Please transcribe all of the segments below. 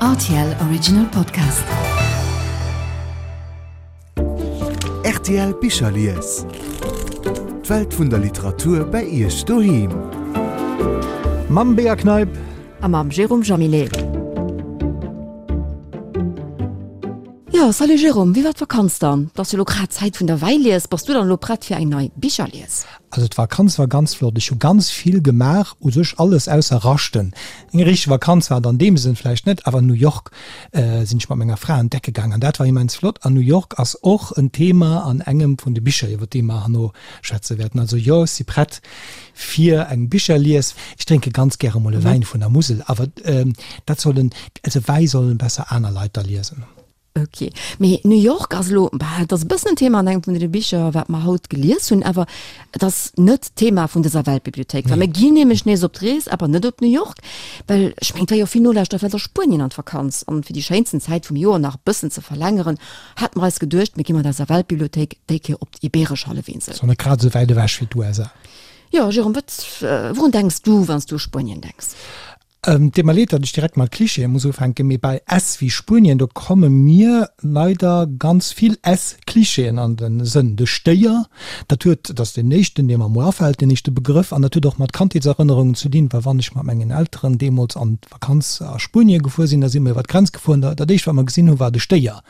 Rtl Original Podcast. Rtl Bicherlies. D'Welt vun der Literatur bei Iech doheem. Mam Bea Kneip. A mam Jérôme Jaminet. Jo, salut Jérôme, wéi war d'Vakanz dann? Et ass jo elo grad Zäit vun der Wäilies. Bass du dann elo prett fir eng nei Bicherlies? Also d'Vakanz war ganz flott. Ech hu ganz vill gemaach, u sech alles ausser raschten. Eng richteg Vakanz war et an deem Sënn vläicht net, awer New York sinn ech mat menger Fra entdecke gaang an dat war immens flott. An New York ass och en Thema an engem vun de Bicher, iwwer déi mer herno schwätze wäerten. Also jo, ech si prett fir eng Bicherlies. Ech drénke ganz gäre mol e Wäin vun der Musel, awer dat sollen, also Wäi sollen besser aner Leit da liesen. Ok, mee New York ass elo, bah, et ass e bëssen en Thema an engem vun deene Bicher, wat mer haut gelies hunn, awer et ass net d'Thema vun dëser Weltbibliothéik, well mir ginn nämlech nees op d'Rees, awer net op New York, well ech mengen, et war jo vill Nolauschterer vläicht a Spuenien an d'Vakanz, an fir déi schéinsten Zäit vum Joer nach e bëssen ze verlängeren, hate mer eis geduecht, mir gi mat eiser Weltbibliothéik déi Kéier op d'Ibeeresch Hallefinsel. Ass och net grad esou wäit ewech wéi d'USA. Jo, Jérôme, wat, wourun denks du, wann s du u Spuenien denks? Et deet mer leed, datt ech direkt mat Klischeeë muss ufänken, mee bei S wéi Spuenien, do komme mir leider ganz vill S-Klischeeën an de Sënn. De Stéier, dat huet, dat ass deen éischten, dee mer emol afält, deen éischte Begrëff, an dat huet och mat Kandheetserënnerungen ze dinn, well wann ech mat mengen Elteren deemools an d'Vakanz a Spuenie gefuer sinn, da si mer iwwer d'Grenz gefuer an dat éischt, wat mer gesinn hunn, war de Stéier.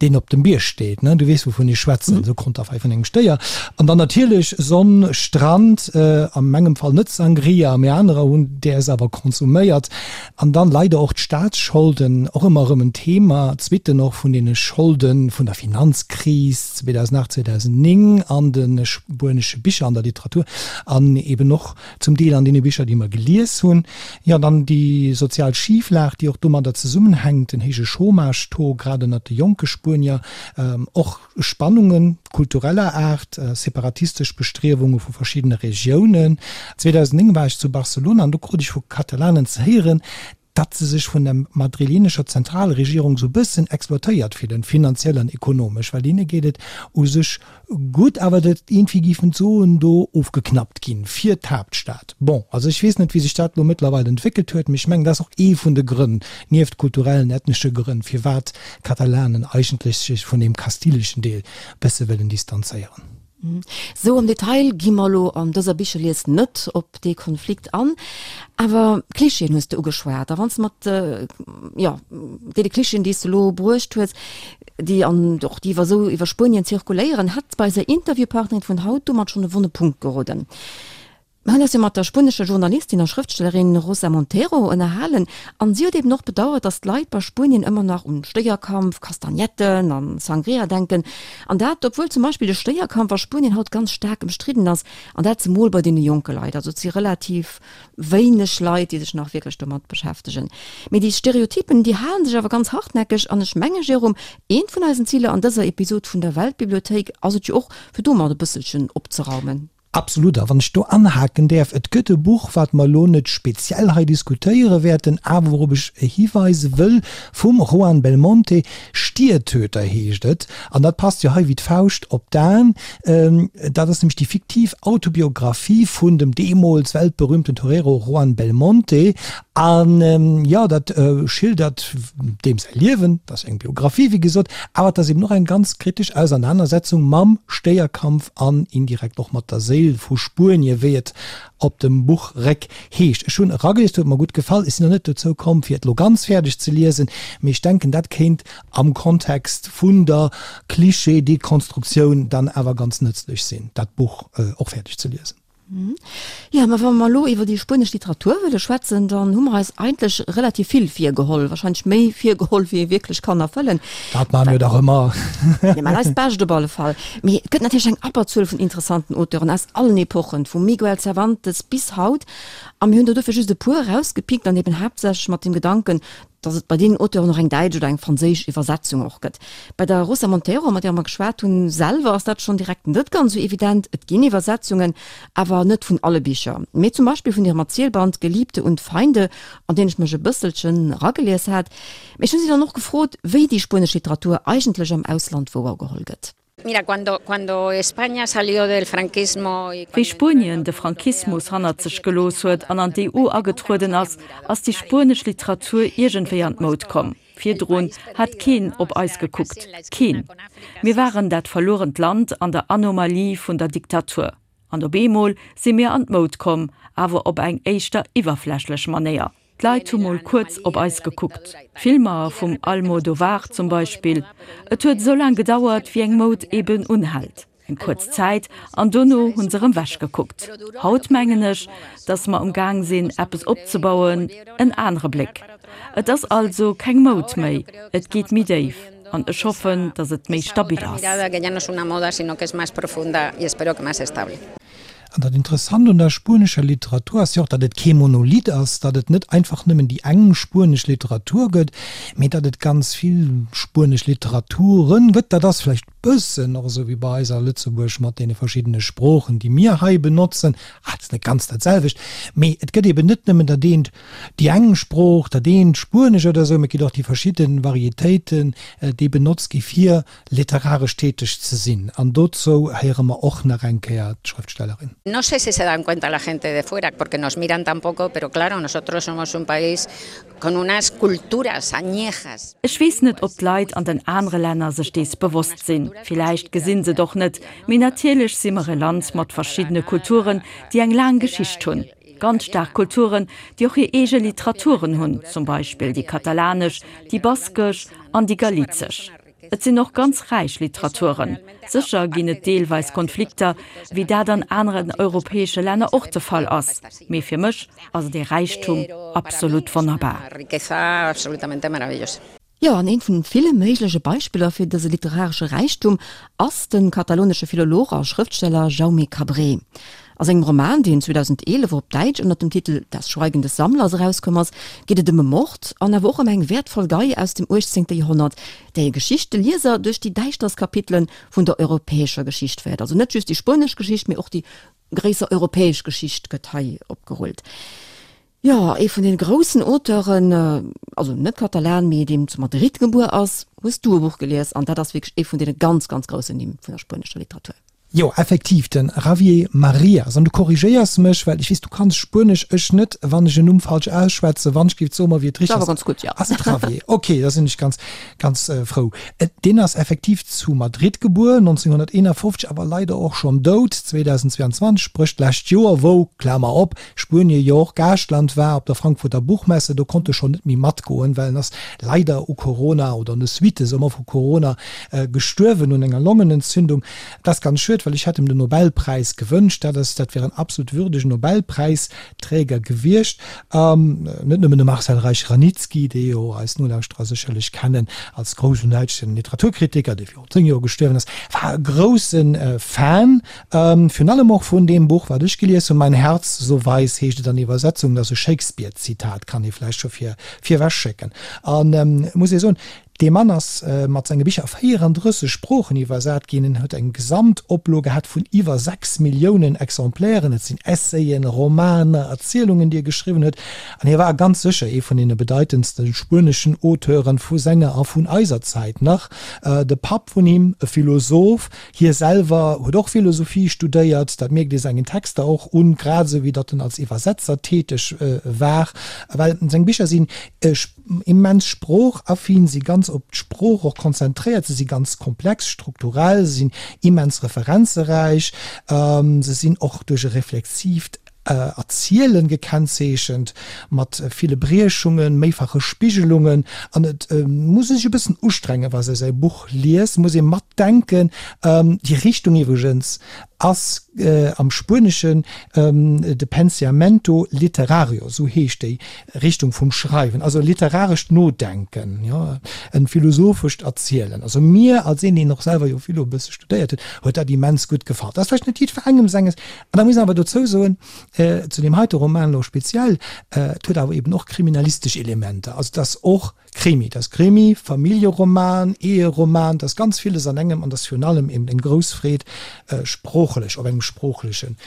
deen op dem Bierg steet, ne, du weess wouvun ech schwätzen, esou Konterfei vun engem Stéier. An dann natierlech Sonn, Strand, a mengem Fall net Sangria, mee anerer hunn däers awer konsuméiert. An dann leider och d'Staatsscholden, och ëmmer erëm en Thema, d'Suitten och vun deene Scholden vun der Finanzkris 2008, 2009 an de spuenesche Bicher, an der Literatur an eben och zum Deel an deene Bicher, déi mer gelies hunn. Jo, dann déi sozial Schiflag, déi och domadder zesummenhänkt, den héije Chômage-Taux, grad ënnert de jonke Spuenier, och Spannunge kultureller Aart, separatistesch Bestriewunge vu verschiddene Regiounen. 2009 war ech zu Barcelona an do krut ech vu Katalanen ze héieren, datt se sech vun der madrilenescher Zentralregierung sou bëssen exploitéiert fillen, finanziell an ekonomesch, well hinne geet et u sech gutt, awer datt iergendwéi géifen d'Suen do ofgeknappt ginn fir d'Haaptstad. Bon, also ech weess net, wéi sech dat elo mëttlerweil entwéckelt huet, mee ech mengen, dat ass och ee vun de Grënn, nieft kulturellen, ethnesche Grënn, firwat d'Katalanen eigentlech sech vun deem kastileschen Deel bësse wëllen distanzéieren. Sou am Detail gi mer elo an dëser Bicherlies net op dee Konflikt an, awer Klischeeën hues de ugeschwat. A wann s de mat, jo, deene Klischeeën, déi s de elo bruecht hues, déi an och déi iwwer esou iwwer Spuenien zirkuléieren, hätt bei eiser Interviewpartnerin vun haut domat schonn e wonne Punkt geroden. Mir hunn eis jo mat der spuenescher Journalistin a Schrëftstellerin Rosa Montero ënnerhalen an si huet eben och bedauert, datt d'Leit bei Spuenien ëmmer nach un Stéierkampf, Kastagnetten an Sangria denken. An dat obwuel zum Beispill de Stéierkampf a Spuenien haut ganz staark ëmstridden ass an dat zemol bei deene jonke Leit. Also et si relativ wéineg Leit, déi sech nach wierklech domat beschäftegen. Mee déi Stereotypen, déi halen sech awer ganz hartnäckeg an ech menge Jérôme, eent vun eisen Ziler an dëser Episod vun der Weltbibliothéik ass et jo och, fir domat e bësselchen opzeraumen. Absolut. A wann ech do anhaken däerf, Et gëtt e Buch, wat mer elo net speziell hei diskutéiere wäerten, awer wourop ech hiweise wëll, vum Juan Belmonte, Stiertöter heescht et. An dat passt jo hei wéi d'Fauscht op d'Aen. Dat ass nämlech déi fiktiv Autobiographie vun dem deemools weltberühmten Torero Juan Belmonte. An jo, dat schildert deem säi Liewen, dat ass eng Biographie, wéi gesot, awer et ass eben och eng ganz kritesch Ausernanersetzung mam Stéierkampf an indirekt och mat der Séil vu Spuenie, wéi et op dem Buchréck heescht. Ech hunn eragelies, huet mer gutt gefall. Ech sinn nach net dozou komm, fir et elo ganz fäerdeg ze liesen, mee ech denken, dat kéint am Kontext vun der Klischee-Dekonstruktioun dann awer ganz nëtzlech sinn, dat Buch och fäerdeg ze liesen. Jo, mä wa mer elo iwwer déi spuenesch Literatur wëlle schwätzen, dann hu mer eis eigentlech relativ vill virgeholl, wahrscheinlech méi virgeholl, wéi ee wierklech kann erfëllen. Dat maache mir dach ëmmer. Mir maachen eist Bescht op alle Fall. Mee et gëtt natierlech eng Abberzuel vun interessanten Auteuren aus allen Epochen, vum Miguel Cervantes bis haut. A mir hunn der dofir just e puer erausgepickt an eben haaptsächlech mat dem Gedanken, dass et bei deenen Auteuren och eng däitsch oder eng franséisch Iwwersetzung och gëtt. Bei der Rosa Montero, mat där mer geschwat hunn, selwer ass dat schonn direkt net ganz esou evident. Et ginn Iwwersetzungen, awer net vun alle Bicher, mee zum Beispill vun hirem Erzielband Geliebte und Feinde, an deen ech mech e bësselchen eragelies hat. Mee ech hunn si dann och gefrot, wéi déi spuenesch Literatur eigentlech am Ausland wouergeholl gëtt. Wéi Spuenien de Franquismus hannert sech gelooss huet an an d'EU agetrueden ass, ass déi spuenesch Literatur iergendwéi an d'Moud komm. Virdrun hat keen op eis gekuckt. Keen. Mir waren dat verluerent Land an der Anomalie vun der Diktatur. An op eemol si mir an d'Moud komm, awer op eng éischter iwwerflächlech Manéier. D'Leit hu mol kuerz op eis gekuckt. D'Filmer vum Almodovar zum Beispill. Et huet esou laang gedauert, wéi eng Moud eben unhält. Eng kuerz Zäit, an dono hu se erëm wech gekuckt. Haut mengen ech, datt mer um Gaang sinn, eppes opzebauen, en anere Bléck. Et ass also keng Moud méi, et geet méi déif. An ech hoffen, datt et méi stabil ass. An dat Interessant un der spuenescher Literatur ass jo och, datt et kee Monolith ass, datt et net einfach nëmmen déi eng spuenesch Literatur gëtt, mee datt et ganz vill spuenesch Literaturen gëtt. Dat ass vläicht bëssen och esou wéi bei eis a Lëtzebuerg mat deene verschiddene Sproochen, déi mir hei benotzen. Ah, et ass net ganz dat selwecht, mee et gëtt eben net nëmmen dat eent, déi eng Sprooch, dat eent Spuenesch oder esou, mee et ginn och déi verschidde Varietéiten, déi benotzt gi fir Literaresch täteg ze sinn. An dozou héiere mer och nach eng Kéier d'Schrëftstellerin. No sé si se dan cuenta la gente de fuera, porque nos miran tan poco, pero claro, nosotros somos un país con unas culturas añejas. Ech weess net, ob d'Leit an den anere Länner sech dees bewosst sinn. Villäicht gesinn se et och net. Mee natierlech si mer e Land mat verschiddene Kulturen, déi eng laang Geschicht hunn. Ganz staark Kulturen, déi och hir eege Literaturen hunn, zum Beispill déi katalanesch, déi baskesch an déi galizesch. Et sinn och ganz räich Literaturen. Sécher ginn et deelweis Konflikter, wéi dat an aneren europäesche Länner och de Fall ass, mee fir mech ass et ee Räichtum, absolut wonnerbar. Jo, an eent vun ville méigleche Beispiller fir dëse literaresche Räichtum ass de katalonesche Philolog a Schrëftsteller Jaume Cabré. A sengem Roman, deen 2011 op Däitsch ënner dem Titel Das Schweigen des Sammlers erauskomm ass, geet et ëm e Mord an awer och ëm eng wäertvoll Gei aus dem 18. Joerhonnert, déi Geschicht de Lieser duerch déi däischterst Kapitele vun der europäescher Geschicht féiert. Also net just déi spuenesch Geschicht, mee och déi gréisser europäesch Geschicht gëtt hei opgerullt. Jo, ee vun den groussen Auteuren, also net Katalan, mee deem zu Madrid gebuer ass, hues du e Buch gelies an dat ass wierklech ee vun deene ganz, ganz groussen Nimm vun der spuenescher Literatur. Jo, effektiv, de Javier Marias. An du korrigéiers mech, well ech weess, du kanns Spuenesch, ech net. Wann ech en Numm falsch ausschwätzen, wann ech géif, so mer, wéi et richtig ass. Awer ganz gutt, jo. Ass et Javier? Ok, da sinn ech ganz, ganz frou. Deen ass effektiv zu Madrid gebuer, 1951, awer leider och schonn dout, 2022, spréch d'lescht Joer, wou, Klamer op, Spuenie jo och Gaaschtland war op der Frankfurter Buchmesse, do konnt e schonn net méi matgoen, well en ass leider u Corona oder un de Suitte soe mer vu Corona gestuerwen, un enger Longenentzündung. Dat ass ganz schued, well ech hätt em den Nobelpräis gewënscht. Dat ass, dat wär en absolut würdegen Nobelpräisträger gewiescht. Net nëmmen de Marcel Reich-Ranicki, dee jo eis Nolauschterer sécherlech kennen als groussen däitschen Literaturkritiker, dee virun 10 Joer gestuerwen ass, war e grousse Fan Virun allem och vun deem Buch, wat ech gelies hunn, Mein Herz so weiß heescht et an Iwwersetzung, dat ass e Shakespeare-Zitat, kann ee vläicht scho vir virwech schécken. An et muss ee soen, dee Mann ass mat senge Bicher a 34 Sproochen iwwersat ginn, en huet eng Gesamtoplo gehat vun iwwer 6 Milliounen Exemplairen. Et sinn Essayen, Romaner, Erzielungen, déi e geschriwwen huet. An hie war ganz sécher ee vun deene bedeitendste spueneschen Auteuren vu senger a vun eiser Zäit nach. De Papp vun him, e Philosoph, Hie selwer huet och Philosophie studéiert, dat mierkt ee sengen Texter och un, grad esou wéi datt en als Iwwersetzer täteg war, well seng Bicher sinn immens sproochaffin, si ganz op d'Sprooch och konzentréiert, se si ganz komplex strukturell, se sinn immens referenzeräich, se sinn och duerch e reflexiivt Erzielen gekennzeechent, mat ville Briechungen, méifache Spigelungen, an et muss ee sech e bëssen ustrengen, wa se säi Buch liest, muss ee matdenken. Déi Richtung iwwregens ass am Spueneschen de Pensiamento literario, esou heescht déi Richtung vum Schreiwen, also literarescht Nodenken, jo, e philosophescht Erzielen. Also mir als een, deen och selwer jo Philo e bësse studéiert huet, huet dat immens gutt gefall. Dat ass vläicht net jiddwerengem senges. An da muss een awer dozou soen, zu deem heite Roman elo speziell, et huet awer eben och kriminalistesch Elementer. Also et ass och Krimi, et ass Krimi, Familljeroman, Eheroman, et ass ganz villes an engem an et ass virun allem eben eng grouss Freed sproochlech, op engem sproochlechen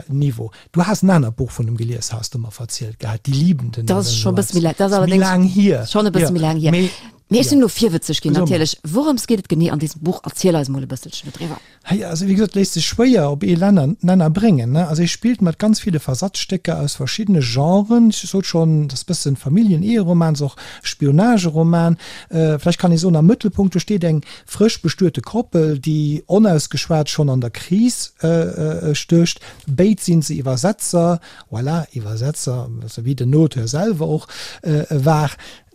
Niveau. Du has en anert Buch vun em gelies, has de mer verzielt gehat, Die Liebenden Dat ass scho e bësse méi laang, dat ass allerdéngs schonn e bësse méi laang hier. Mee ech sinn elo virwëtzeg ginn natierlech. Wourëms geet et genee an dësem Buch? Erziel eis mol e bësselchen dodriwwer. Hei, also wéi gesot, léisst sech schwéier op ee Lenner, Nenner bréngen, ne? Also hie spillt mat ganz ville Versatzstécker aus verschiddene Genren. Ech sot schonn, et ass bëssen Familljen-Eheroman, ass och Spionageroman. Vläicht kann ee soen, am Mëttelpunkt do steet eng frësch bestuete Koppel, déi onausgeschwat schonn an der Kris stécht. Béid sinn se Iwwersetzer, voilà, Iwwersetzer, also wéi den Auteur selwer och war.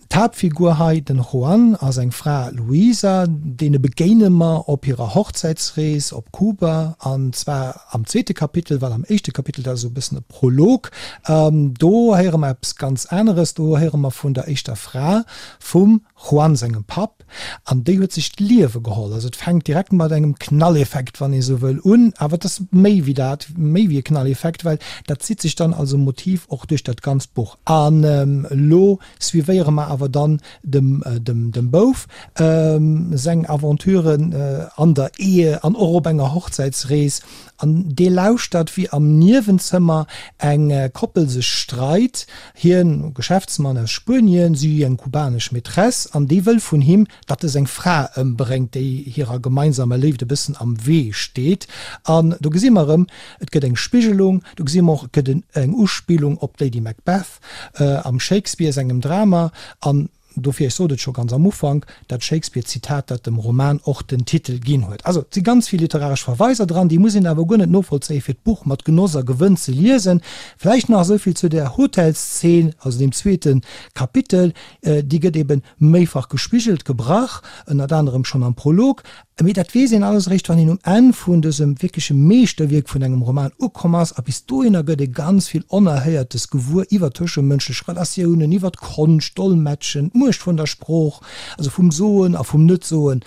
D'Haaptfigur hei, den Juan a seng Fra Luisa, deene begéine mer op hirer Hochzäitsrees op Kuba, an zwar am zweete Kapitel, well am éischte Kapitel, dat ass esou e bëssen e Prolog, do héiere mer eppes ganz aneres, do héiere mer vun der éischter Fra vum Juan sengem Papp, an déi huet sech d'Liewe geholl. Also et fänkt direkt mat engem Knalleffekt, wann ee sou wëll, un, awer et ass méi wéi dat, méi wéi e Knalleffekt, well dat zitt sech dann als e Motiv och duerch dat ganzt Buch. An elo suivéiere mer awer dann dem dem Bouf seng Aventuren an der Ehe an och op enger Hochzäitsrees. An dee lauschtert, wéi am Niewenzëmmer eng Koppel sech streit, hien, Geschäftsmann aus Spuenien, si, eng kubanesch Maîtresse, an déi wëll vun him, datt e seng Fra ëmbréngt, déi hirer gemeinsamer Léift e bëssen am Wee steet. An do gesi mer erëm, et gëtt eng Spigelung, do gesi mer och, et gëtt eng Uspillung op d'Lady Macbeth, Am Shakespeare sengem Drama, an dofir, ech sot et scho ganz am Ufank, dat Shakespeare-Zitat, dat dem Roman och den Titel ginn huet. Also, et si ganz vill literaresch Verweiser dran, déi muss een awer guer net novollzéien, fir d'Buch mat Genoss a Gewënn ze liesen. Vläicht nach esou vill zu där Hotelszeen, also deem zweete Kapitel, déi gëtt ebe méifach gespigelt, gebrach, ënnert anerem schonn am Prolog, Mee dat weess een alles eréischt, wann een um Enn vun dësem wierkleche Meeschterwierk vun engem Roman ukomm ass. A bis dohinner gëtt ee ganz vill Onerhéiertes gewuer iwwer tëschemënschlech Relatiounen, iwwer d'Konscht, d'Dolmetschen, d'Muecht vun der Sprooch, also vum Soen a vum Net-Soen,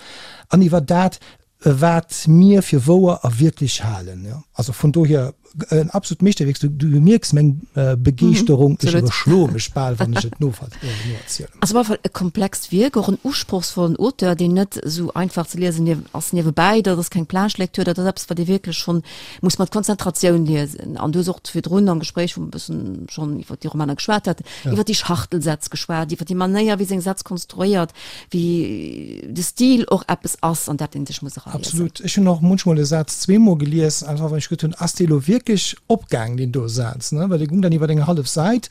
an iwwer dat, wat mir fir wouer a wierklech halen. Also vun dohier En absolut Meeschterwierk. Du, du mierks meng äh, Begeeschterung. Ech iwwerschloe mech bal, wann ech et noerzielen. Ass op alle Fall e komplext Wierk, och en usprochsvollen Auteur, deen net esou einfach ze liesen niew ass niewebäi. Dat ass keng Plage-Lecture, dat ass eppes, wat ee wierklech schonn muss mat Konzentratioun liesen. An du hues och virdrun am Gespréich, wou mer e bëssen schonn iwwer déi Romaner geschwat haten, iwwer déi Schachtelsätz geschwat, iwwer déi Manéier, wéi seng Sätz konstruéiert, wéi de Stil och eppes ass, an dat een sech muss eraliesen. Absolut. Ech hunn och munchmol e Saz zweemol gelies, einfach well ech geduet hunn, ass dee lo wierklech opgaang, deen do Saz, ne? Well dee gung dann iwwer eng hallef Säit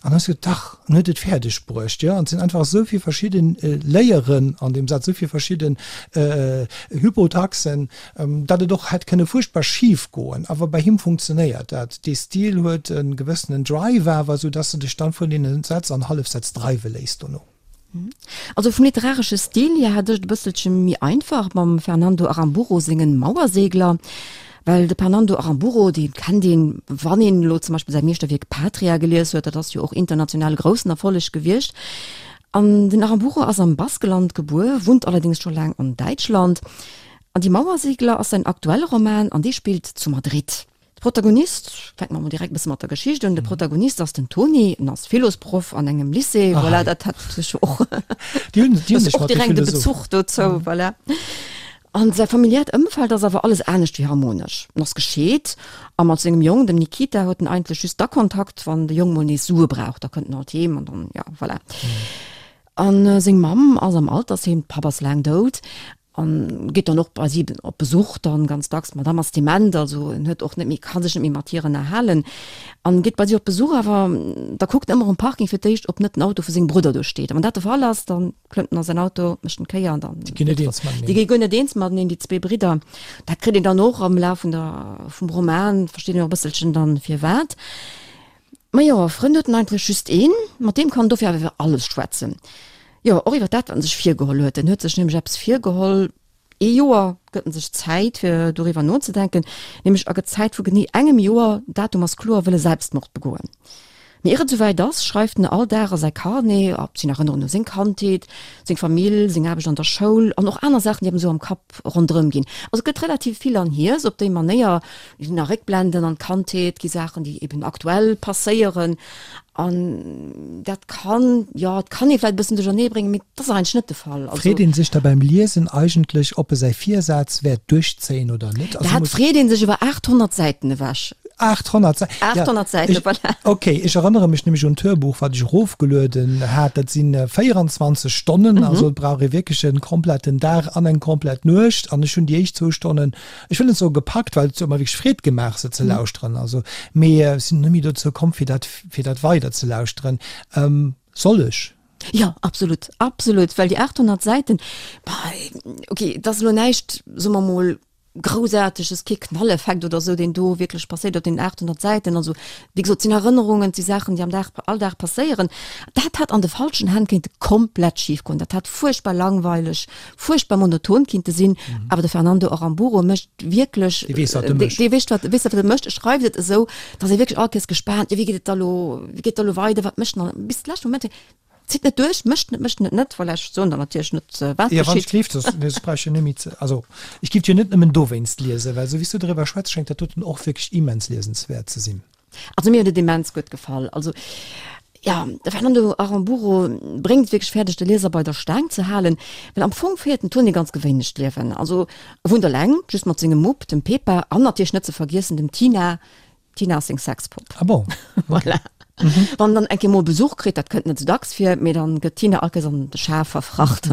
an dann hues du geduet, dach, en huet et fäerdeg bruecht, jo. An et sinn einfach esou vill verschidden Layeren an deem Saz, esou vill verschidden Hypotaxen, datt et och hätt kënne fuerchtbar schif goen. Awer bei him funktionéiert dat. Dee Stil huet e gewëssenen Drive awer, esou datt s de dech dann vun deene Sätz an Hallefsätz dreiwe léiss dono. Also vum literaresche Stil hier hat ech et e bësselche méi einfach mam Fernando Aramburu sengen Mauersegler, well de Fernando Aramburu, dee kennt een, wann een elo zum Beispill säi Meeschterwierk Patria gelies huet, dat ass jo och international e groussen Erfolleg gewiescht. An den Aramburu ass am Baskeland gebuer, wunnt allerdéngs scho laang an Däitschland. An Die Mauersegler ass säin aktuelle Roman an dee spillt zu Madrid. De Protagonist, fänke mer mol direkt e bësse mat der Geschicht un, de Protagonist ass den Toni, en ass Philosproff an engem Lycée, voilà, dat hat sech och, Déi hunn, déi hunn sech och mat de direkt e Philosophen. Bezuch dozou, voilà. An säi familiäert Ëmfeld ass awer alles anescht wéi harmonesch. En ass gescheet a mat sengem Jong, dem Nikita, huet en eigentlech just da Kontakt, wann de Jong mol nees Sue brauch, da kënnt en alt heem an dann, ja, voilà. An seng Mamm ass am Altersheem, de Papp ass laang dout. An geet dann och bei si op Besuch dann ganz dacks. D'Madame ass dement, also en huet och net méi, ka sech net méi mat hir ënnerhalen. An geet bei si op Besuch, awer da kuckt en ëmmer um Parking fir d'éischt, ob net den Auto vu sengem Brudder do steet. A wann dat de Fall ass, dann klëmmt en a säin Auto, mécht en d'Kéier an dann. Déi ginn net eens mateneen. Déi gi guer net eens mateneen, déi zwee Bridder. Dat kritt een dann och am Laf vun der, vum Roman, versteet een och e bësselchen dann firwat. Majo, e Frënd huet en eigentlech just een, mat deem kann en dofir awer iwwer alles schwätzen. Jo, och iwwer dat, wat en sech virgeholl huet. En huet sech nämlech eppes virgeholl, ee Joer gëtt en sech Zäit, fir doriwwer nozedenken, nämlech a gëtt Zäit vu genee engem Joer, Datum ass kloer, wëll e Selbstmord begoen. Mee ier et esouwäit ass, schreift en all Dag a säi Carnet, op sinn Erënnerungen u seng Kandheet, seng Famill, seng Aarbecht an der Schoul an och aner Saachen, déi em esou am Kapp ronderëm ginn. Also et gëtt relativ vill an Hiers op déi Manéier, ginn nach Réckblenden an d'Kandheet, gi Saachen, déi eben aktuell passéieren an dat kann, jo, et kann ee vläicht e bëssen duerchernee bréngen, mee dat ass eigentlech net de Fall. Also. Freet ee sech da beim Liesen eigentlech, ob e säi Virsaz wäert duerchzéien oder net? Also Dat freet ee sech iwwer 800 Säiten ewech. 800 Säiten. 800 Säiten, voilà. Ok, ech erënnere mech nämlech un d'Hörbuch, wat ech erofgelueden hat. Dat si 24 Stonnen, also et brauch ee wierklech e kompletten Dag an eng komplett Nuecht. An ech hunn déi éischt zwou Stonnen, ech wëll net soe gepackt, well et huet mer wierklech Freed gemaach, se ze lauschteren, also, mee ech sinn net méi dozou komm, fir dat, fir dat weider ze lauschteren. Soll ech? Jo, absolut, absolut, well déi 800 Säiten, bah, ok, et ass elo näischt, soe mer mol, Groussaarteges, kee Knalleffekt oder esou, deen do wierklech passéiert op deenen 800 Säiten. Also, wéi gesot, et sinn Erënnerungen, et si Saachen, déi am Dag, Alldag passéieren. Dat hätt an de falschen Hänn kéinte komplett schif goen. Dat hätt fuerchtbar langweileg, fuerchtbar monoton kinnte sinn. Awer de Fernando Aramburu mécht wierklech, Dee weess, wat e mécht. Dee weess, wat, weess, wat e mécht. E schreift et esou, datt ee wierklech all Kéiers gespaant, jo, wéi geet et da lo, wéi geet et da lo weider, wat mécht en dann? Bis de leschte Moment Zitt net duerch, mécht net, mécht net net, voilà, ech soen der natierlech net, wat geschitt. Ja, wann ech gleeft, soss, nee, soss brauch ech jo net méi ze, also ech giff jo net nëmmen dowéinst liesen, well esou wéi s du driwwer schwätz, schéngt dat doten och wierklech immens liesenswäert ze sinn. Also mir huet et immens gutt gefall. Also ja, de Fernando Aramburu bréngt et wierklech fäerdeg, de Lieser bei der Staang ze halen, well am Fong féiert den Toni e ganz gewéinlecht Liewen. Also e wunnt eleng, just mat sengem Mupp, dem Pepa, an natierlech net ze vergiessen dem Tina, D'Tina ass seng Sexpopp. Ah bon? Voilà. Mhm. Wann dann eng Kéier mol Besuch kritt, dat kënnt net sou dacks vir, mee dann gëtt d'Tina all Kéiers an de Schaf verfracht.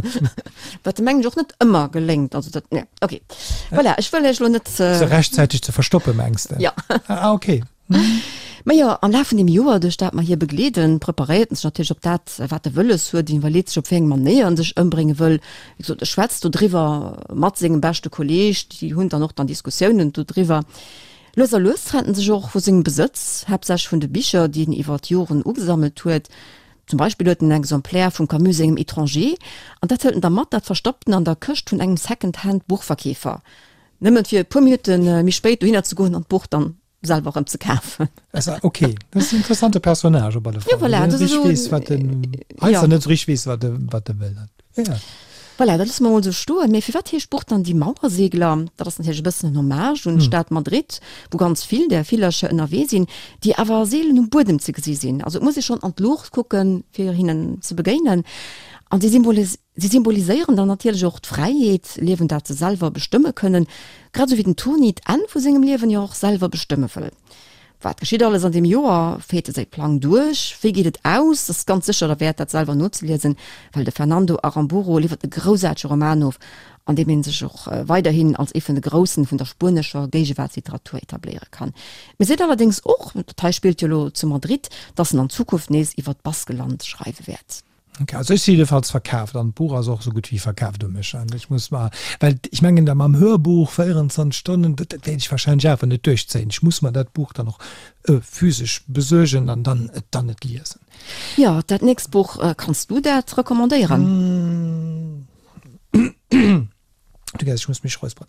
Wat mengen ech och net ëmmer geléngt. Also dat, nee, okay. Voilà, ech wëll iech lo net. Se rechtzäiteg ze verstoppen, mengs de? Ja. Ah, okay. Mhm. Mä jo, am Laf vun deem Joer, duerch dat mer hie begleeden, preparéiert en sech natierlech op dat, wat e wëlles huet, iwwerleet sech, op wéi eng Manéier en sech ëmbrénge wëll. Wéi gesot, e schwätzt dodriwwer mat sengem beschte Kolleeg, déi hunn dann och dann Diskussiounen dodriwwer. Lues a lues trennt en sech och vu sengem Besëtz, haaptsächlech vun de Bicher, déi en iwwer d'Joren ugesammelt huet. Zum Beispill huet en en Exemplaire vum Camus sengem Étranger, an dat hëlt en da mat, dat verstoppt en an der Këscht vun engem Second-Hand-Buchverkeefer, nëmmen fir e puer Minutte méi spéit dohinner ze goen an d'Buch dann selwer erëm ze kafen. Ok, dat ass en interessante Personnage op alle Fall. Jo, voilà, dat ass esou. Weess, wat en, heiansdo net esou richteg weess, wat e, wat e wëll. Ja. Voilà, dat loosse mer mol esou stoen. Mee firwat heescht d'Buch dann Die Mauersegler? Dat ass natierlech e bëssen en Hommage un d'Stad Madrid, wou ganz vill där Villercher ënnerwee sinn, déi awer seelen um Buedem ze gesi sinn. Also et muss ee schonn an d'Luucht kucken, fir hinnen ze begéinen. An si si symboliséieren dann natierlech och d'Fräiheet, Liewen, dat se selwer bestëmme kënnen, grad esou wéi den Toni d'Enn vu sengem Liewen jo och selwer bestëmme wëll. Wat geschitt alles an deem Joer? Féiert e säi Plang duerch? Wéi geet et aus? Ass ganz sécher derwäert, dat selwer nozeliesen, well de Fernando Aramburu liwwert e groussaartege Roman of, an deem ee sech och weiderhin als ee vun de Groussen vun der spuenescher Géigewaartsliteratur etabléiere kann. Mee seet allerdéngs och, dat hei spillt jo elo zu Madrid, dass en an Zukunft nees iwwer d'Baskeland schreiwe wäert. Ok, also ech si jiddefalls verkaaft an d'Buch ass och esou gutt wéi verkaaft u mech. An ech muss mer, well ech mengen da mam Hörbuch 24 Stonnen, dat dat wäert ech wahrscheinlech awer net duerchzéien. Ech muss mer dat Buch dann och physesch besuergen an dann et dann et liesen. Jo, dat nächst Buch, kanns du dat recommandéieren? Du gess, ech muss mech räusperen.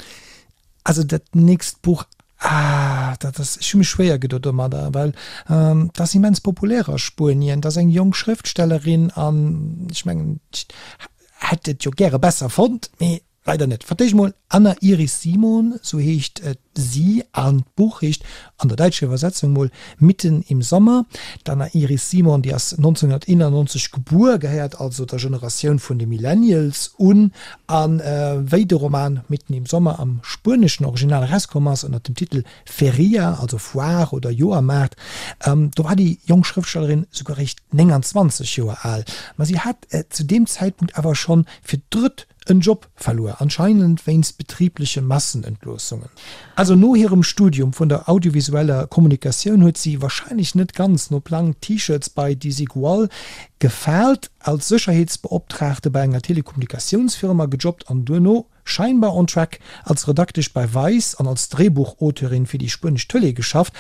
Also dat nächst Buch, ah, dat ass, ech hu mech schwéier gedo domadder, well dat ass immens populär a Spuenien. Dat ass eng jonk Schrëftstellerin an ech mengen, ech hätt et jo gäre besser fonnt, mee leider net. Fir d'éischt mol Anna Iris Simon, sou heescht si an d'Buch heescht an der däitscher Iwwersetzung mol Mitten im Sommer. D'Anna Iris Simon, déi ass 1991 gebuer, gehéiert also der Generatioun vun de Millennials un. A wéi de Roman Mitten im Sommer am spueneschen Original erauskomm ass, ënner dem Titel Feria, also Foire oder Joermaart, do war déi jonk Schrëftstellerin souguer eréischt 29 Joer al. Ma si hat zu deem Zäitpunkt awer schonn fir d'drëtt en Job verluer, anscheinend wéinst betribleche Massenentloossungen. Also no hirem Studium vun der audiovisueller Kommunikatioun huet si, wahrscheinlech net ganz no Plang, T-Shirts bei Desigual gefaalt, als Sécherheetsbeoptraagte bei enger Telekommunikatiounsfirma gejobbt an duerno, scheinbar on track, als Redaktesch bei Vice an als Dréibuchauteurin fir déi spuenesch Tëlee geschafft,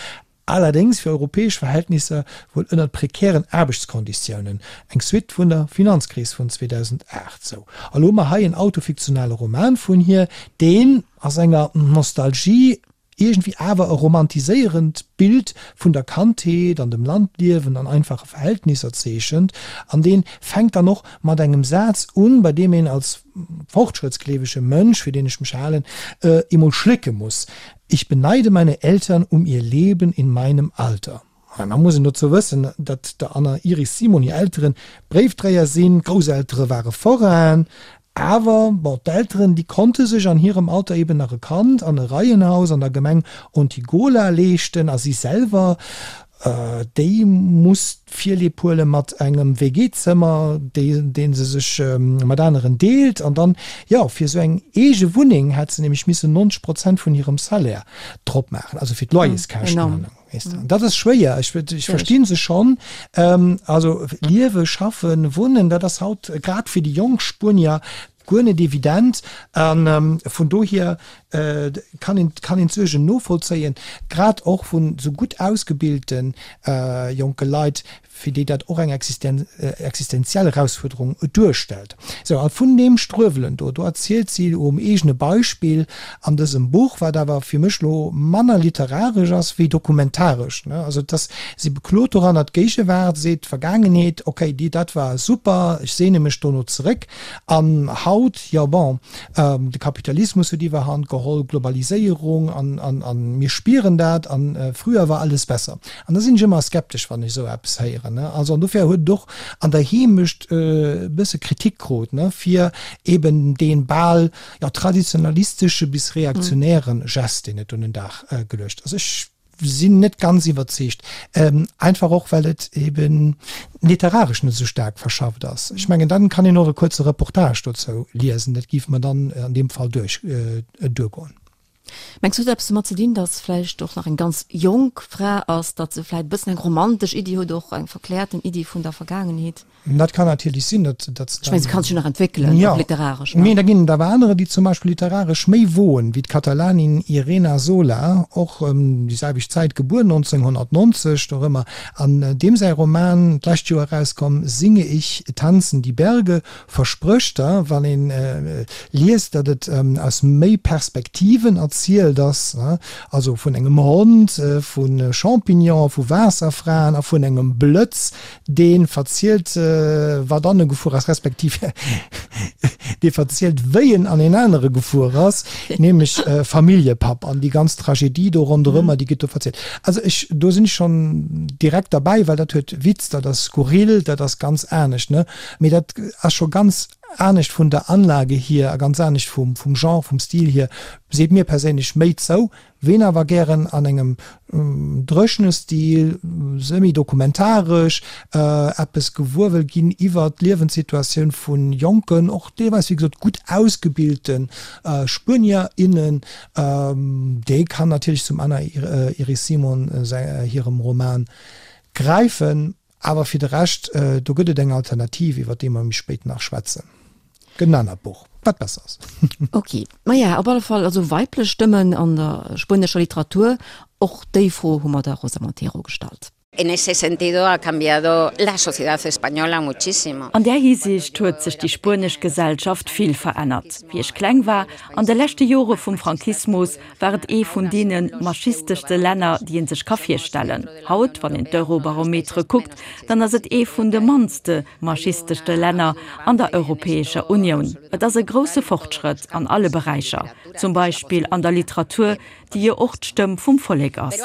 Allerdéngs fir europäesch Verhältnisser wuel ënnert prekären Aarbechtskonditiounen, eng Suite vun der Finanzkris vun 2008. Sou, a lo hu mer hei en autofiktionale Roman vun hir, deen a senger Nostalgie iergendwéi awer e romantiséierend Bild vun der Kandheet an dem Landliewen an einfache Verhältnisser zeechent, an dee fänkt dann och mat engem Saz un, bei deem een als fortschrëttsgleewege Mënsch, fir deen ech mech halen, emol schlécke muss, Ich beneide meine Eltern um ihr Leben in meinem Alter. Da muss een dozou wëssen, datt der Anna Iris Simon hir Elteren Bréifdréier sinn, d'Grousseltere ware Forainen. Awer, bon, d'Elteren, déi konnte sech an hirem Alter eben nach e Kand an e Reihenhaus an der Gemeng Ontígola leeschten a si selwer, déi muss Virlieb huele mat engem WG-Zëmmer, dee se sech mat aneren deelt. An dann, jo, fir esou eng eege Wunneng hätt se nämlech missen 90 Prozent vun hirem Salaire drop maachen, also fir d'Loyerskäschten. Weess de, an dat ass schwéier. Ech, ech versti se schonn. Also liewe, schaffen, wunnen, dat ass haut grad fir déi jonk Spuenier guer net evident. A vun dohier kann een, kann een d'Suergen novollzéien, grad och vun esou gutt ausgebilte jonke Leit, fir déi dat och eng existenziell Erausfuerderung duerstellt. Sou, a vun deem Struewelen do, do erzielt si um eegene Beispill an dësem Buch, wat awer fir mech lo manner literaresch ass wéi dokumentaresch, ne, also et ass, si beklot doranner d'Géigewaart, seet d'Vergaangenheet, okay, déi, dat war super, ech sehne mech dono zeréck, an haut, jo bon, de Kapitalismus huet Iwwerhand geholl, Globaliséierung, an, an, an mir spieren dat, an früher war alles besser. An da sinn ech ëmmer skeptesch, wann ech esou eppes héieren. Also, an dofir huet et och an der Heemecht e bësse Kritik krut, fir eben dee bal, jo, traditionalistesche bis reaktionäre Gest, deen et un den Dag geluecht ass. Ech sinn net ganz iwwerzeegt, einfach och, well et eben literaresch net esou staark verschafft ass. Ech mengen, dann kann een och e kuerze Reportage dozou liesen, dat géif mer dann an deem Fall duerch, duergoen. Mengs du, huet eppes domat ze dinn, datt vläicht och nach eng ganz jonk Fra ass, datt se vläicht e bëssen eng romantesch Iddi huet, och eng verkläerten Iddi vun der Vergaangenheet? Dat kann natierlech sinn, datt datt se. Ech mengen, se kann sech jo nach entwéckelen, och literaresch, ne? Mee da ginn et awer anerer, déi zum Beispill literaresch méi woen, wéi d'Katalanin Irena Sola, och ëm déi selwecht Zäit gebuer, 1990, dorëmmer, an deem säi Roman, d'lescht Joer erauskomm, Singe ich, tanzen die Berge, Versprécht der, wann een liest, datt et aus méi Perspektiven erzielt ass, also vun engem Hond, vu Champignonen, vu Waasserfraen a vun engem Blëtz, dee verzielt, wat an e gefuer ass, respektiv dee verzielt, wéi en an een anere gefuer ass, nämlech Familljepapp an déi ganz Tragedie do ronderëmmer, déi gëtt do verzielt. Also ech, do sinn ech schonn direkt derbäi, well dat huet Witz, dat ass skurril, dat ass ganz anescht, ne? Mee dat ass scho ganz anescht vun der Anlage hier a ganz anescht vum Genre, vum Stil hier, seet mir perséinlech méi zou. Ween awer gären an engem dréchene Stil, semi-dokumentaresch, eppes gewuer wëll ginn iwwer d'Liewenssituatioun vu jonken, och deelweis wéi gesot gutt ausgebilte Spuenier, innen, dee kann natierlech zum Ana Iris Simon hirem Roman gräifen. Awer fir de Rescht, do gëtt et eng Alternativ, iwwer déi mer méi spéit nach schwätzen. Gëtt en anert Buch, wat besser ass. Ok. Maja, op alle Fall also weiblech Stëmmen an der spuenescher Literatur, och déi Fro hu mer der Rosa Montero gestallt. En ese sentido ha cambiado la sociedad española muchísimo. An där Hisiicht huet sech déi spuenesch Gesellschaft vill verännert. Wéi ech kleng war, an de leschte Jore vum Franquismus, war et ee vun deene machisteschste Länner, déi ee sech ka virstellen. Haut, wann een d'Eurobarometere kuckt, dann ass et ee vun de mannste machisteschste Länner an der Europäescher Unioun. Et ass e grousse Fortschrëtt an alle Beräicher, zum Beispill an der Literatur, déi jo och d'Stëmm vum Vollek ass.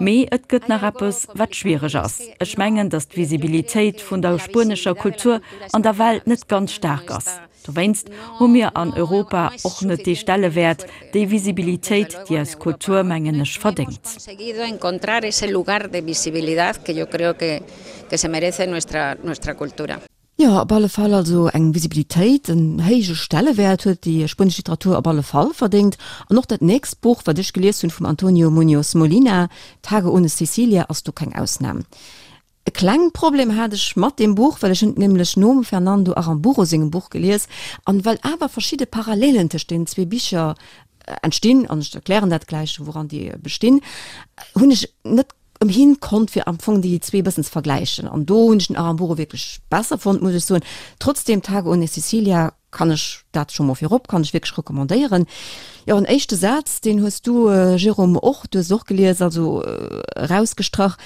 Mee et gëtt nach eppes, wat schwiereg ass. Ech mengen, datt d'Visibilitéit vun der spuenescher Kultur an der Welt net ganz staark ass. Dowéinst hu mir an Europa och net dee Stellewäert, déi Visibilitéit, déi eis Kultur, mengen ech, verdéngt. Jo, op alle Fall also eng Visibilitéit, en héije Stellewäert huet déi spuenesch Literatur op alle Fall verdéngt. An och dat nächst Buch, wat ech gelies hunn, vum Antonio Muñoz Molina, Tage ohne Cecilia, ass do keng Ausnam. E kleng Problem hat ech mat deem Buch, well ech hunn et nämlech nom Fernando Aramburu sengem Buch gelies, an well awer verschidde Parallelen tëscht deenen zwee Bicher entstinn, an ech erklären dat gläich, wouran déi bestinn, hunn ech net ëmhin konnt, fir am Fong déi zwee e bëssen ze vergläichen. An do hunn ech den Aramburu wierklech besser fonnt, muss ech soen. Trotzdem, Tage ohne Cecilia kann ech dat scho mol virop, kann ech wierklech recommandéieren. Jo, en éischte Saz, deen hues du, Jérôme, och, du hues et och gelies, also erausgestrach.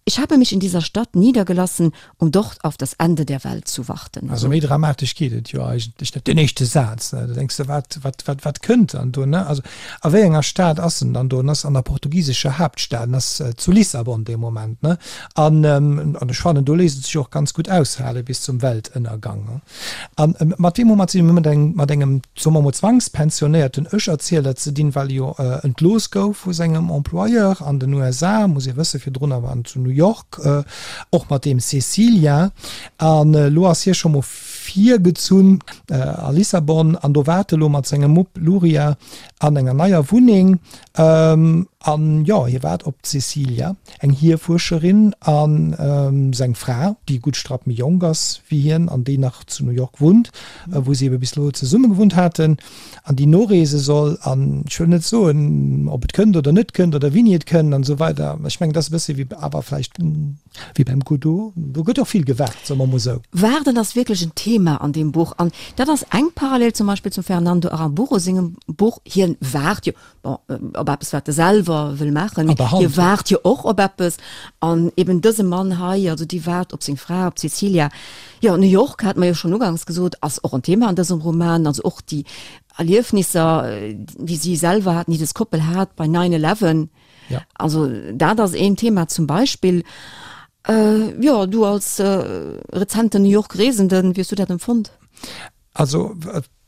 Ich habe mich in dieser Stadt niedergelassen, um dort auf das Ende der Welt zu warten. Also méi dramatesch geet et jo eigentlech net. Deen éischte Saz, ne, da denks de, wat, wat, wat, wat kënnt dann do, ne? Also a wéi enger Stad ass en dann do? En ass an der portugisescher Haaptstad, en ass zu Lissabon dee Moment, ne? An, an ech fannen, do léisst et sech och ganz gutt aushale bis zum Weltënnergang, ne? A mat weem hu mer ze dinn? Mir hu mat engem, mat engem, soe mer mol, zwangspensionéierten Ech-Erzieler ze dinn, well e jo entlooss gouf vu sengem Employeur an den USA, muss ee wëssen, virdrun awer an zu New York, och mat deem Cecilia. An elo ass hie scho mol virgezunn a Lissabon an do waart e lo mat sengem Mupp Luria an enger neier Wunneng. An jo, hie waart op d'Cecilia. Eng Hierfuerscherin a seng Fra, déi e gutt Strapp méi jonk ass wéi hien an déi nach zu New York wunnt, wou si ebe bis elo zesumme gewunnt haten, an déi noreese soll. An ech wëll net soen, ob et kënnt oder net kënnt oder wéini et kënnt an esou weider. Ech mengen, dat ass e bësse wéi, awer vläicht wéi beim Godot, do gëtt och vill gewaart, soe mer emol esou. Waarden ass wierklech en Thema an deem Buch an dat ass eng Parallel zum Beispill zum Fernando Aramburu sengem Buch. Hien waart jo, bon, op eppes wat e selwer wëll maachen, mee hie waart jo och op eppes an eben dëse Mann hei, also dee waart op seng Fra, op d'Cecilia. Jo, New York, hate mer jo schonn uganks gesot, ass och en Thema an dësem Roman, also och déi Erliefnisser, déi si selwer haten, déi dës Koppel hat bei Nine Eleven. Ja. Also dat ass een Thema zum Beispill. Jo, du als rezenten New York Reesenden, wéi hues du dat empfonnt? Also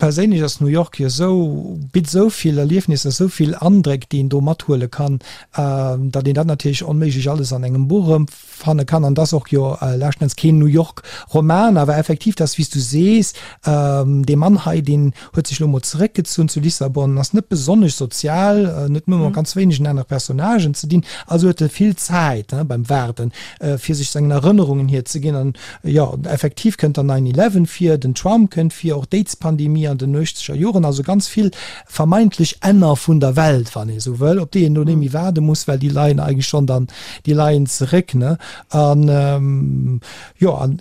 perséinlech ass New York jo esou, bitt esou vill Erliefnisser, esou vill Andréck, déi een do mathuele kann, datt een dat natierlech onméiglech alles an engem Buch erëmfanne kann. An et ass och jo leschten Enns keen New York Roman, awer effektiv, dat ass wéi s du sees, dee Mann hei, deen huet sech elo mol zeréckgezunn zu Lissabon, ass net besonnesch sozial, net nëmme mat ganz wéinegen anere Personnagen ze dinn, also huet e vill Zäit beim Waarden, fir sech sengen Erënnerungen hierzeginn. An Jo, effektiv kënnt dann Nine Eleven vir, den Trump kënnt vir, och d'Aids-Pandemie an den nuechteger Joren, also ganz vill vermeintlech Enner vun der Welt, wann ee sou wëll, op déi een elo net méi waarde muss, well déi leien eigentlech schonn dann, déi leien zeréck, ne? An, jo, an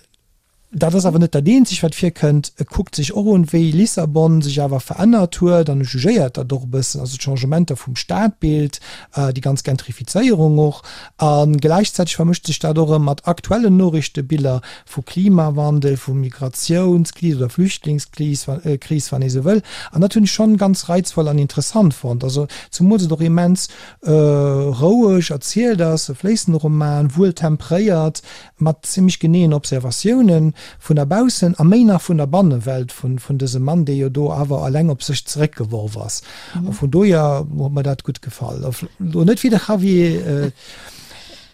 dat ass awer net dat eenzegt, wat virkënnt. E kuckt sech och un, wéi Lissabon sech awer verännert huet an e jugéiert dat och e bëssen, also d'Changementer vum Stadbild, déi ganz Gentrifizéierung och. A gläichzäiteg vermëscht sech dat och erëm mat aktuellen Noriichtebiller vu Klimawandel, vu Migratiounskris oder Flüchtlingskris, Kris, wann ee sou wëll. An dat hunn ech schonn ganz reizvoll an interessant fonnt. Also zumools et och immens roueg erzielt ass, e fléissende Roman, wuel tempréiert, mat zimmlech geneeën Observatiounen vun der Baussen a méi nach vun der Bannewelt vun dësem Mann, dee jo do awer eleng op sech zeréckgeworf ass. A vun dohier huet mer dat gutt gefall. Elo net wéi de Javier,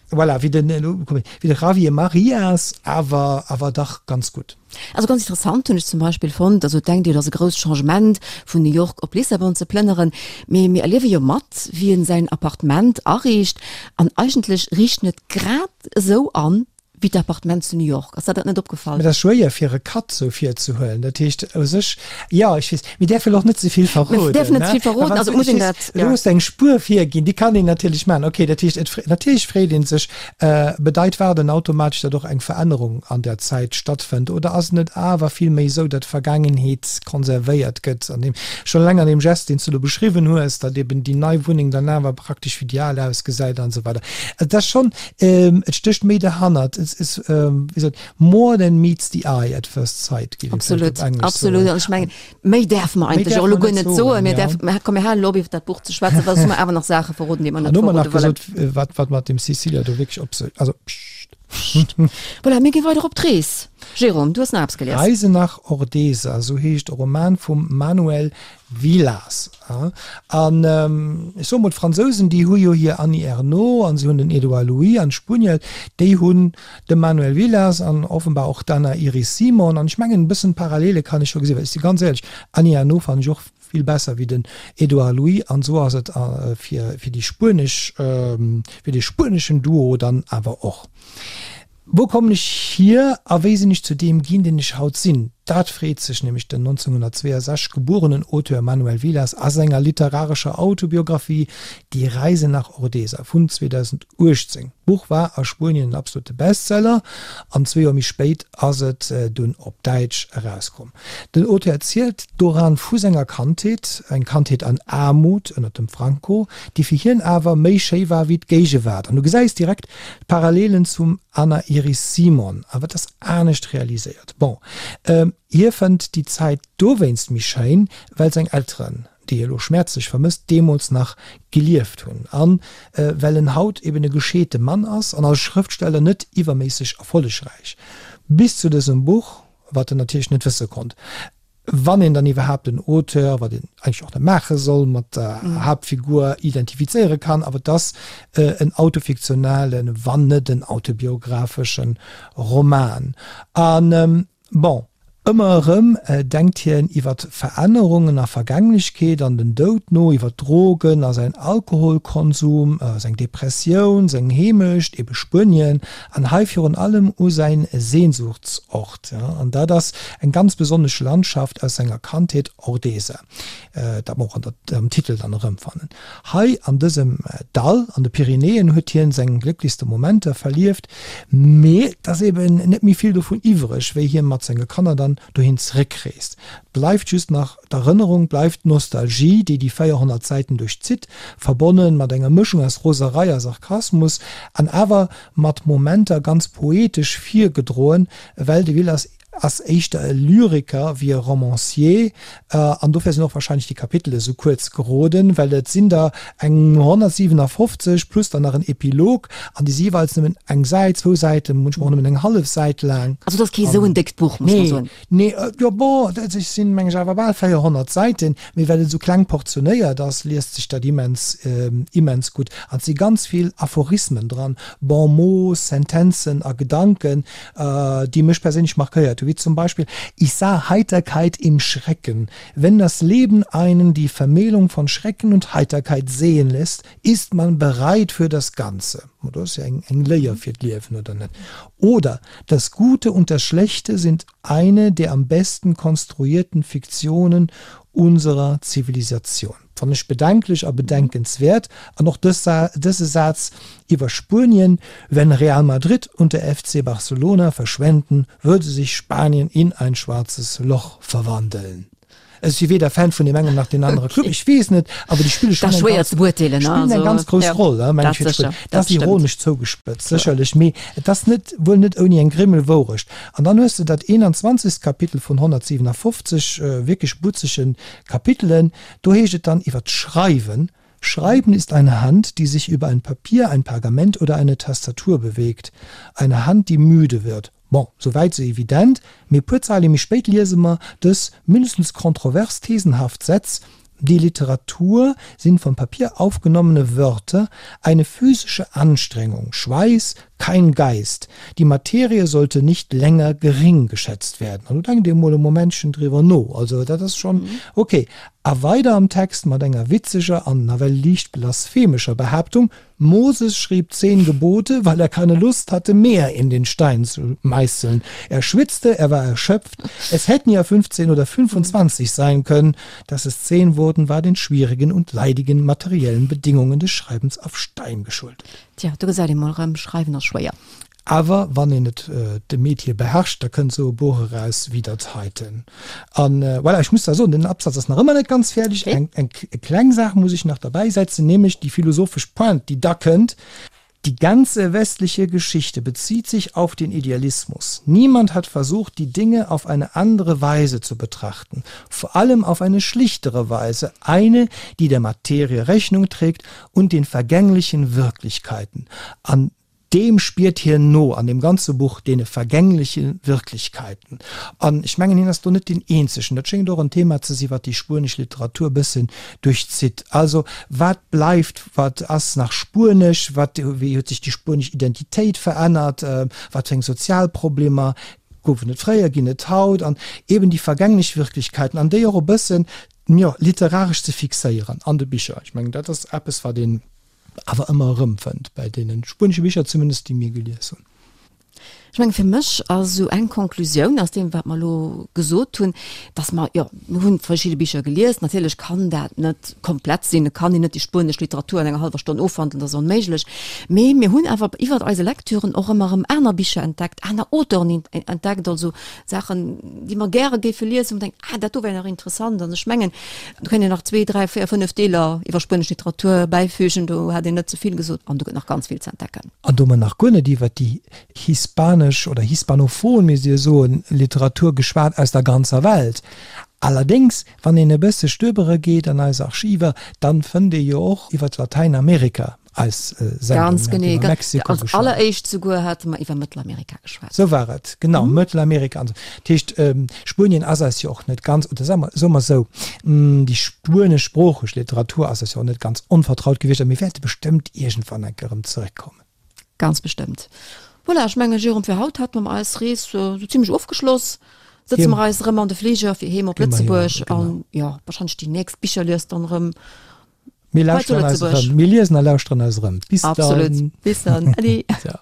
voilà, wéi den, elo komm ech, wéi de Javier Marias, awer, awer dach ganz gutt. Also ganz interessant hunn ech zum Beispill fonnt, also et denkt Dir, et ass e grousst Changement vun New York op Lissabon ze plënneren, mee mir erliewe jo mat, wéi en säin Appartement ariicht an eigentlech riicht en et grad esou an wéi d'Appartement zu New York. Ass der dat net opgefall? Mä dat ass schwéier fir e Cut sou virzehuelen. Dat heescht u sech, jo, ech weess, mir däerfe lo och net ze vill verroden. Mir däerfen net ze vill verroden, also et muss een dat, jo. Elo hues de eng Spuer virginn, déi kann een natierlech maachen. Okay, dat heescht, et, natierlech freet ee sech, Bedeit Waarden automatesch, datt och eng Verännerung an der Zäit stattfënnt oder ass et net awer vill méi esou, datt d'Vergaangenheet konservéiert gëtt an deem, schonn eleng an deem Gest, deen s du do beschriwwen hues, datt eben déi nei Wunneng dann awer praktesch wéi déi al ausgesäit an esou weider. Et ass schonn, et stécht méi derhannert. Et is, wéi sot, more than meets the eye at first sight, géif ee vläicht op Englesch soen. Absolut, absolut. An ech mengen, Méi däerfe mer eigentlech och elo guer net soen. Mir däerfen, komm mir halen elo op iwwer dat Buch ze schwätzen, well soss hu mer awer nach Saache verroden, déi mer net verrode wëllen. An hu mer nach gesot, wat, wat mat dem Cecilia do wierklech op sech, also pssst. Voilà, mir gi weider op d'Rees. Jérôme, du hues nach eppes gelies. Reise nach Ordesa, esou heescht e Roman vum Manuel Vilas. An ech soe mol, d'Fransousen, déi hu jo hir Annie Ernaux an se hunn den Edouard Louis an d'Spuenier, déi hunn de Manuel Vilas an offenbar och d'Anna Iris Simon. An ech mengen, e bëssen Parallele kann ech scho gesinn, well ech si ganz éierlech, Annie Ernaux fannen ech och vill besser wéi den Edouard Louis. An esou ass et fir fir déi spuenesch, fir dee spueneschen Duo dann awer och. Wou kommen ech hier a wéi sinn ech zu deem ginn, deen ech haut sinn? Dat freet sech nämlech den 1962 gebuerenen Auteur Manuel Vilas a senger literarescher Autobiographie Die Reise nach Ordesa vun 2018. D'Buch war a Spuenien en absolute Bestseller an zwee Joer méi spéit ass et dunn op Däitsch erauskomm. Den Auteur erzielt doran vu senger Kandheet, eng Kandheet an Aarmut ënnert dem Franco, déi fir hien awer méi schéi war wéi d'Géigewaart. An du gesäis direkt d'Parallelen zum Anna Iris Simon, awer et ass anescht realiséiert. Bon, hie fënnt déi Zäit dowéinst méi schéin, well seng Elteren, déi hie lo schmäerzlech vermësst, deemools nach gelieft hunn an well en haut eben e gescheete Mann ass an als Schrëftsteller net iwwerméisseg erfollegräich. Bis zu dësem Buch, wat en natierlech net wësse konnt, wann een dann iwwerhaapt den Auteur, wat een eigentlech och net maache soll, mat der Haaptfigur identifizéiere kann, awer et ass en autofiktionalen, wann net en autobiographeschen Roman. An bon, ëmmer erëm denkt hien iwwer Verännerungen a Vergänglechkeet an den Doud no, iwwer Drogen a säin Alkoholkonsum, seng Depressioun, seng Heemecht, ebe Spuenien, an hei virun allem u säin Sehnsuchtsort. An dat ass eng ganz besonnesch Landschaft aus senger Kandheet, Ordesa, dat mer och an der, am Titel dann erëmfannen. Hei an dësem Dall an de Pyrenäen huet hien seng glécklechste Momenter verlieft, mee et ass eben net méi vill dovun iwwreg, wéi hie mat senge Kanner dann dohin zeréckreest. Bleift just nach d'Erënnerung, bleift d'Nostalgie, déi déi 400 Säiten duerchzitt, verbonne mat enger Mëschung aus Roserei a Sarkasmus, an awer mat Momenter ganz poetesch virgedroen, well de Vilas ass éischter e Lyriker wéi e Romancier, an dofir sinn och wahrscheinlech déi Kapitele sou kuerz geroden, well et sinn der eng 157 plus dann nach en Epilog, an déi si jeeweils nëmmen eng Säit, zwou Säiten, munchmol och nëmmen eng hallef Säit laang. Also et ass kee sou en déckt Buch, muss mer soen. Nee, jo bon, et sinn meng ech awer bal 400 Säiten, mee well et esou kleng portionéiert ass, liest sech dat immens, immens gutt. An et si ganz vill Aphorismen dran, Bon mots, Sentenzen a Gedanken, déi mech perséinlech markéiert hu, wéi zum Beispill, Ich sah Heiterkeit im Schrecken. Wenn das Leben einen die Vermählung von Schrecken und Heiterkeit sehen lässt, ist man bereit für das Ganze. Dat ass jo eng Léier fir d'Liewen, oder net? Oder, Das Gute und das Schlechte sind eine der am besten konstruierten Fiktionen unserer Zivilisation. Fannen ech bedenklech a bedenkenswäert. An och dëse Saz iwwer Spuenien, Wenn Real Madrid und der FC Barcelona verschwänden, würde sich Spanien in ein schwarzes Loch verwandeln. Ech si weder Fan vun deem engem nach deem anere Club, ech weess net, awer déi spille schonn eng ganz, spillen eng ganz grouss Roll, meng ech, fir d'Spuenier. Dat ass ironesch zougespëtzt, sécherlech, mee et ass net, wuel net ouni eng Grimmel Wourecht. An dann hues de dat 21. Kapitel vun 157 wierklech butzege Kapitelen, Do heescht et dann iwwer d'Schreiwen, Schreiben ist eine Hand, die sich über ein Papier, ein Pergament oder eine Tastatur bewegt. Eine Hand, die müde wird. Bon, sou wäit sou evident, mee e puer Zeile méi spéit liese mer dës mindestens kontrovers thesenhaft Sätz, Die Literatur sind vom Papier aufgenommene Wörter, eine physische Anstrengung, Schweiß, kein Geist. Die Materie sollte nicht länger gering geschätzt werden. An do denkt ee mol e Momentchen driwwer no. Also dat ass schonn ok. A weider am Text mat enger witzeger an nawell liicht blasphemescher Behaaptung, Moses schrieb zehn Gebote, weil er keine Lust hatte, mehr in den Stein zu meißeln. Er schwitzte, er war erschöpft. Es hätten ja 15 oder 25 sein können. Dass es zehn wurden, war den schwierigen und leidigen materiellen Bedingungen des Schreibens auf Stein geschuldet. Tja, do gesäit ee mol erëm, Schreiwen ass schwéier. Awer wann een et de Metier beherrscht, da kënnt esou e Buch eraus wéi dat heiten. An voilà, ech muss da soen, den Absatz ass nach ëmmer net ganz fäerdeg. Eng, eng kleng Saach muss ech nach derbäisetzen, nämlech déi philosophesch Pointe, déi da kënnt, Die ganze westliche Geschichte bezieht sich auf den Idealismus. Niemand hat versucht, die Dinge auf eine andere Weise zu betrachten, vor allem auf eine schlichtere Weise, eine, die der Materie Rechnung trägt und den vergänglichen Wirklichkeiten. An deem spiert hien no an deem ganze Buch, deene vergängleche Wirklichkeiten. An ech mengen, hien ass do net deen Eenzegen. Dat schéngt och en Thema ze sinn, wat déi spuenesch Literatur e bëssen duerchzitt. Also, wat bleift, wat ass nach spuenesch, wat, wéi huet sech déi spuenesch Identitéit verännert, wat fir eng sozial Problemer goufen et fréier, ginn et haut, an eben déi vergänglech Wirklichkeiten, an déi och e bëssen, jo, literaresch ze fixéieren an de Bicher. Ech mengen, dat ass eppes, wat een awer ëmmer erëmfënnt, bäi deene spuenesche Bicher zumindest, déi mir gelies hunn. Ech mengen, fir mech ass esou eng Konklusioun aus deem, wat mer elo gesot hunn, dass mer, jo, mir hunn verschidde Bicher gelies, natierlech kann dat net komplett sinn, et kann een net déi spuenesch Literatur an enger hallwer Stonn ofhandelen, dat ass onméiglech, mee mir hunn awer iwwert eise Lektüren och ëmmer erëm aner Bicher entdeckt, aner Auteuren entdeckt, also Saachen, déi mer gäre géife liesen, wou mer denken, ah, dat do wär nach interessant. An ech mengen, do kéint een nach zwee, dräi, véier, fënnef Deeler iwwer spuenesch Literatur bäifügen, do hat een net ze vill gesot an do gëtt nach ganz vill ze entdecken. An do hu mer nach guer net iwwert déi hispanesch oder hispanophon, misst ee jo soen, Literatur geschwat aus der ganzer Welt. Allerdéngs, wann een e bësse stöbere geet an eis Archiver, dann fënnt ee jo och iwwert Latäinamerika eis Sendung. Ganz genee, iwwer Mexiko als geschwat. Alleréischt souguer hate mer iwwer Mëttelamerika geschwat. Sou war et, genau, Mëttelamerika an esou. Dat heescht, Spuenien ass eis jo och net ganz, oder soe mer, soe mer esou, déi spueneschsproocheg Literatur ass eis jo och net ganz onvertraut gewiescht a mir wäerte bestëmmt iergendwann eng Kéier erëm zeréckkommen. Ganz bestëmmt. Voilà, ech mengen, Jérôme, fir haut hate mer eis Rees sou zimlech ofgeschloss. Sëtze mer eis erëm an de Fliger fir heem op Lëtzebuerg an, jo, wahrscheinlech déi nächst Bicherlies dann erëm Mir lauschteren eis erëm. Mir liesen a lauschteren eis erëm. Bis dann. Absolut. Bis dann. Ade. Ciao.